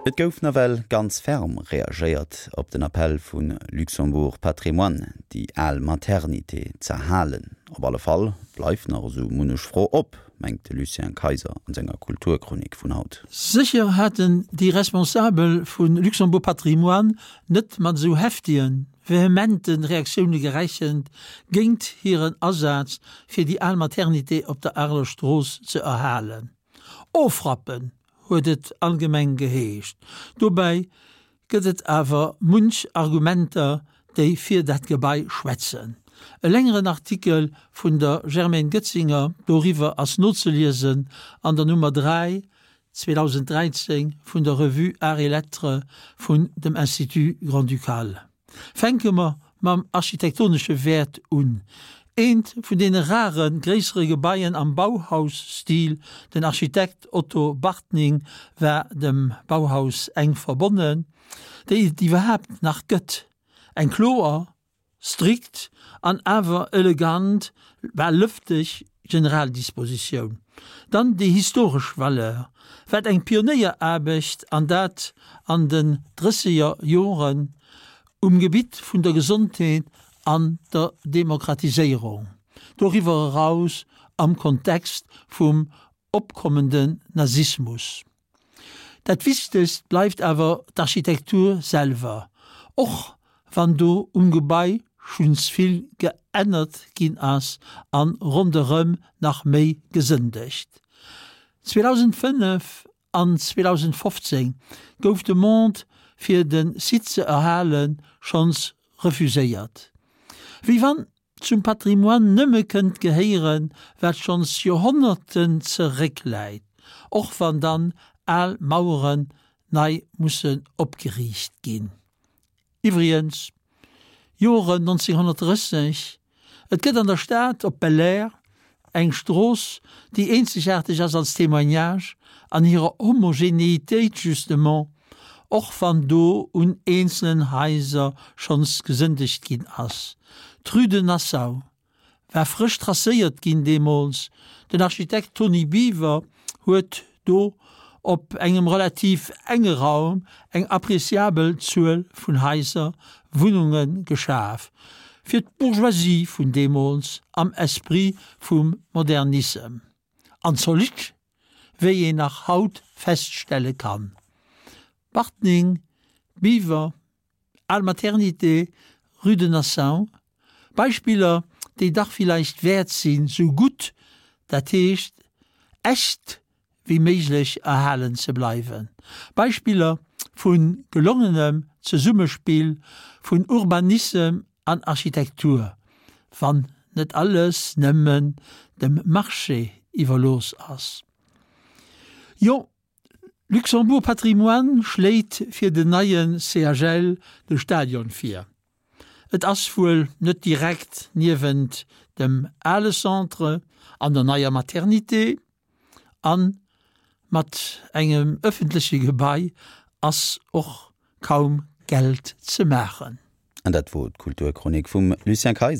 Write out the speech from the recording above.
Et gouf nawell ganz ferm reagéiert op den Appell vu Luxembourg Patrimoine, déi al Maternité z'erhalen. Op alle Fall bleift nach esou munnech Fro op, mengt de Lucien Kayser an senger Kulturchronik vun haut. Sécher haten déi Responsabel vu Luxembourg Patrimoine net mat esou heftigen, vehemente Reaktioune gerechent géint hiren Asaz fir déi al Maternité op der Areler Strooss ze erhalen. Ofrappen huet et allgemeng geheescht. Dobäi gëtt et awer munch Argumenter, déi fir dat Gebai schwätzen. E längeren Artikel vun der Germaine Goetzinger doriwwer ass nozeliesen an der Nummer 3, 2013 vun der Revue Arts et Lettres vun dem Institut Grand-Ducal. Fänke mer mam architektonesche Wäert un. Eent vun deene rare gréissere Gebaien am Bauhaus-Stil, den Architekt Otto Bartning war dem Bauhaus enk verbonnen, déi et iwwerhaapt nach gëtt. Eng kloer, strikt an awer elegant, bal lëfteg Generaldispositioun. Dann déi historesch Valeur, wat eng Pionéieraarbecht, an dat an den drësseger Joren, um Gebitt vun der Gesondheet an der Demokratiséierung, doriwwer eraus am Kontext vum opkommenden Nazismus. Dat Wichtegst bleift awer d'Architektur selwer, och wann do um Gebai schuns vill geännert ginn ass an ronderëm nach méi gesëndegt. 2005 an 2015 gouf d'Demande fir de Site ze erhalen schonns refuséiert. Wéi wann zum Patrimoine nëmme kënnt gehéieren, wat schonns Joerhonnerten zeréckläit, och wann dann al Maueren nei mussen opgeriicht ginn. Iwwregens, Joren 1930, et gëtt an der Stad op Belair eng Strooss, déi eenzegaarteg ass als Témoignage an hirer Homogénéitéit justement, och wann do un eenzelen Haiser schonns gesëndegt ginn ass. D'Rue de Nassau war frësch tracéiert ginn deemools. Den Architekt Tony Biwer huet do op engem relativ enge Raum eng appréciabel Zuel vun Haiser, Wunnunge geschaf, fir d'Bourgeoisie vun deemools am Esprit vum Modernissem. An zolidd, wéi een nach haut feststelle kann. Bartning, Biwer, Al Maternité, Rue de Nassau, Beispiller, déi dach villäicht wäert sinn, sou gutt, dat heescht echt, wéi méiglech erhalen ze bleiwen. Beispiller vu gelongenem Zesummespill vun Urbanissem an Architektur, wann net alles nëmmen dem Marché iwwerlooss ass. Jo, Luxembourg Patrimoine schléit fir den neie CHL de Stadion vir. Et ass wuel net direkt niewent dem ale Centre an der neier Maternité an mat engem ëffentleche Gebai ass och kaum Geld ze maachen. An dat wor d'Kulturchronik vum Lucien Kayser.